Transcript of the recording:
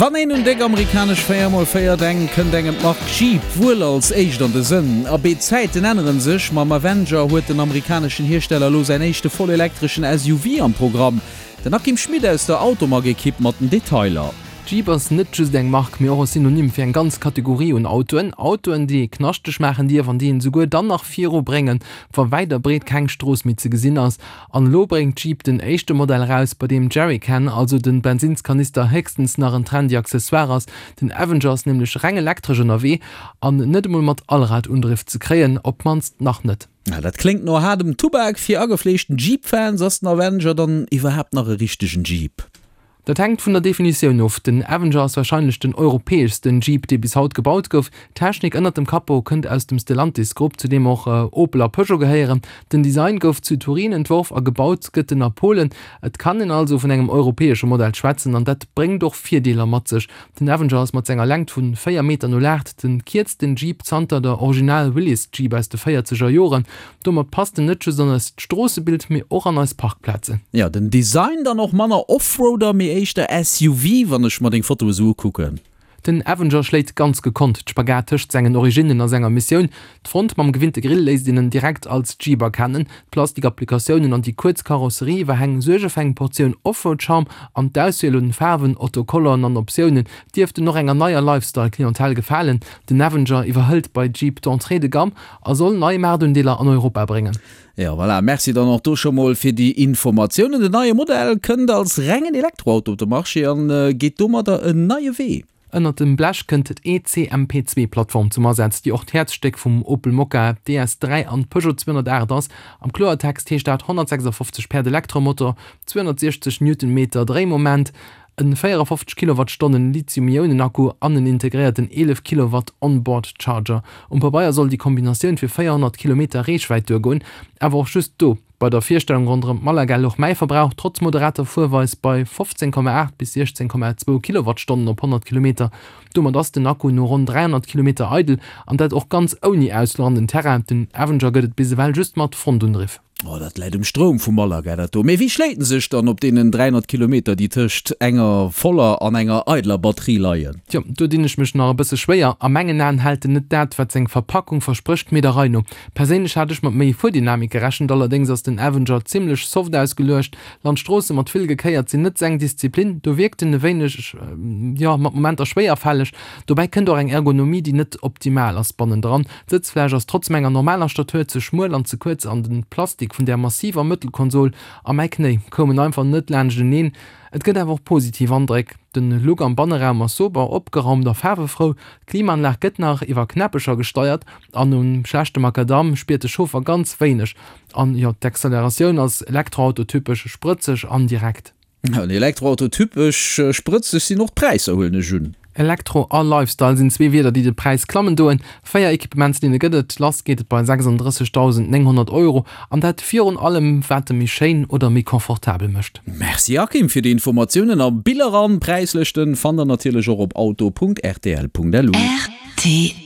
Wann een un déck amerikanesch 4x4 denkt, kënnt engem d'Mark Jeep wuel als éischt an de Sënn. Abee, d'Zäiten änneren sech, mam Avenger huet den amerikaneschen Hiersteller elo säin éischte vollelektreschen SUV am Programm. Den Akim Schmit aus der Automag-Ekipp mat den Detailer. Jeep ass net just eng Mark, mee och e Synonym fir eng ganz Kategorie un Autoen. Autoen, déi ee knaschteg maachen dierf an déi een esouguer dann nach viru bréngen, wa wäit a breet keng Strooss méi ze gesinn ass. An elo bréngt Jeep den éischte Modell eraus, bei deem Jerrycan, also den Bensinnskanister, héchstens nach en trendy Accessoire ass. Den Avenger ass nämlech reng elektresch ënnerwee an net emol mat Allradundriff ze kréien, op d'mannst nach net. Dat kléngt no haardem Tubak. Fir agefleeschten Jeep-Fans ass den Avenger dann iwwerhaapt nach e richtegen Jeep? Dat hänkt vun der Definitioun of. Den Avenger ass warscheinlech den europäeschsten Jeep, dee bis haut gebaut gouf. D'Technik ënnert dem Capot kënnt aus dem Stellantis-Grupp, zu deem och Opel a Peugeot gehéieren. Den Design gouf zu Turin entworf a gebaut gëtt en a Polen. Et kann een also vun engem europäesche Modell schwätzen an dat bréngt och Virdeeler mat sech. Den Avenger ass mat senger Längt vu 4 Meter 08 den kierzten Jeep zanter der Original Willys Jeep aus de véierzeger Joren. Domat passt en net just an eist Stroossebild, mee och an eis Parkplazen. Jo, den Design dann och manner Offroader, mee éischter SUV, wann ech mer deng Foto esou ukucken. Den Avenger schléit ganz gekonnt d'Spagat tëscht sengen Originnen a senger Missioun. D'Front mam gewinnte Grill léisst een en direkt als Jeep erkennen, d'Plastik-Applikatiounen an déi kuerz Karosserie-Iwwerhäng suerge fir eng Portioun Offroad-Charme an d'Auswiel un Faarwen, Autocolleren an Optiounen dierften och enger neier Lifestyle-Clientèle gefalen. Den Avenger iwwerhëlt bei Jeep d'Entrée de gamme a soll nei Maartundeeler an Europa bréngen. Jo, voilà, merci dann och do scho mol fir déi Informatiounen. Den neie Modell kënnt als rengen Elektroauto op de Marché an geet domadder en neie Wee. Ënnert dem Blech kënnt d'ECMP-Zwee-Plattform zum Asaz, déi och d'Häerzstéck vum Opel Mokka, DS3 an Peugeot 208 ass. Am Kloertext heescht dat 156 Päerd Elektromotor, 260 Newtonmeter Dréimoment, En 54 Kilowattstonnen Lithium-Ionen-Akku an en integréierten 11 Kilowatt On-Board Charger. Um Pabeier soll déi Kombinatioun fir 400 Kilometer Reechwäit duergoen, awer och just do. Bei der Virstellung ronderëm Malaga louch mäi Verbrauch trotz moderater Fuerweis bei 15,8 bis 16,2 Kilowattstonnen op 100 Kilometer. Domat ass den Akku no ronn 300 Kilometer eidel, an dat och ganz ouni Ausfluch an den Terrain. Den Avenger gëtt et bis ewell just mat Frontundriff. Oh, dat läit um Stroum vu Malaga, dat do. Mee wéi schléit en sech dann op deenen 300 Kilometer, déi tëscht enger voller an enger eideler Batterie leien? Tjo, do dinn ech mech nach e bësse schwéier. A mengen Aen hält en net dat, wat seng Verpackung versprécht, mee der Rei no. Perséinlech hat ech mat méi Fuerdynamik gerechent, allerdéngs ass den Avenger zimmlech soft ausgeluecht. Landstroosse mat vill Gekéiert sinn net seng Disziplin, do wierkt en e wéineg, jo, mat Momenter schwéierfälleg. Dobäi kënnt och eng Ergonomie, déi net optimal ass bannendran. D'Sëtzfläch ass trotz menger normaler Statur ze schmuel an ze kuerz an den Plastik vun där massiver Mëttelkonsol a mäi Knéi koumen einfach net laanschteneen. Et gëtt awer och positiv Andréck. Den Look am Banneraum ass sober, opgeraumt a faarwefrou. D'Klimaanlag gëtt nach iwwer Knäppecher gesteiert an um schlechte Macadam spiert de Chauffer ganz wéineg. An jo, d'Acceleratioun ass Elektroauto-typesch sprëtzeg an direkt. En Elektroauto typesch sprëtzeg sinn och d'Präisser, huelen ech un. Elektro a Lifestyle sinn zwee Wierder, déi de Präis klammen doen. 4 Equipements-Linne gëtt et, lass geet et bei 36.900 Euro an dat virun allem wat e méi schéin oder méi confortabel mécht. Merci Akim fir déi Informatiounen a Biller an Präislëschten fannt der natierlech och op auto.rtl.lu. Rtl.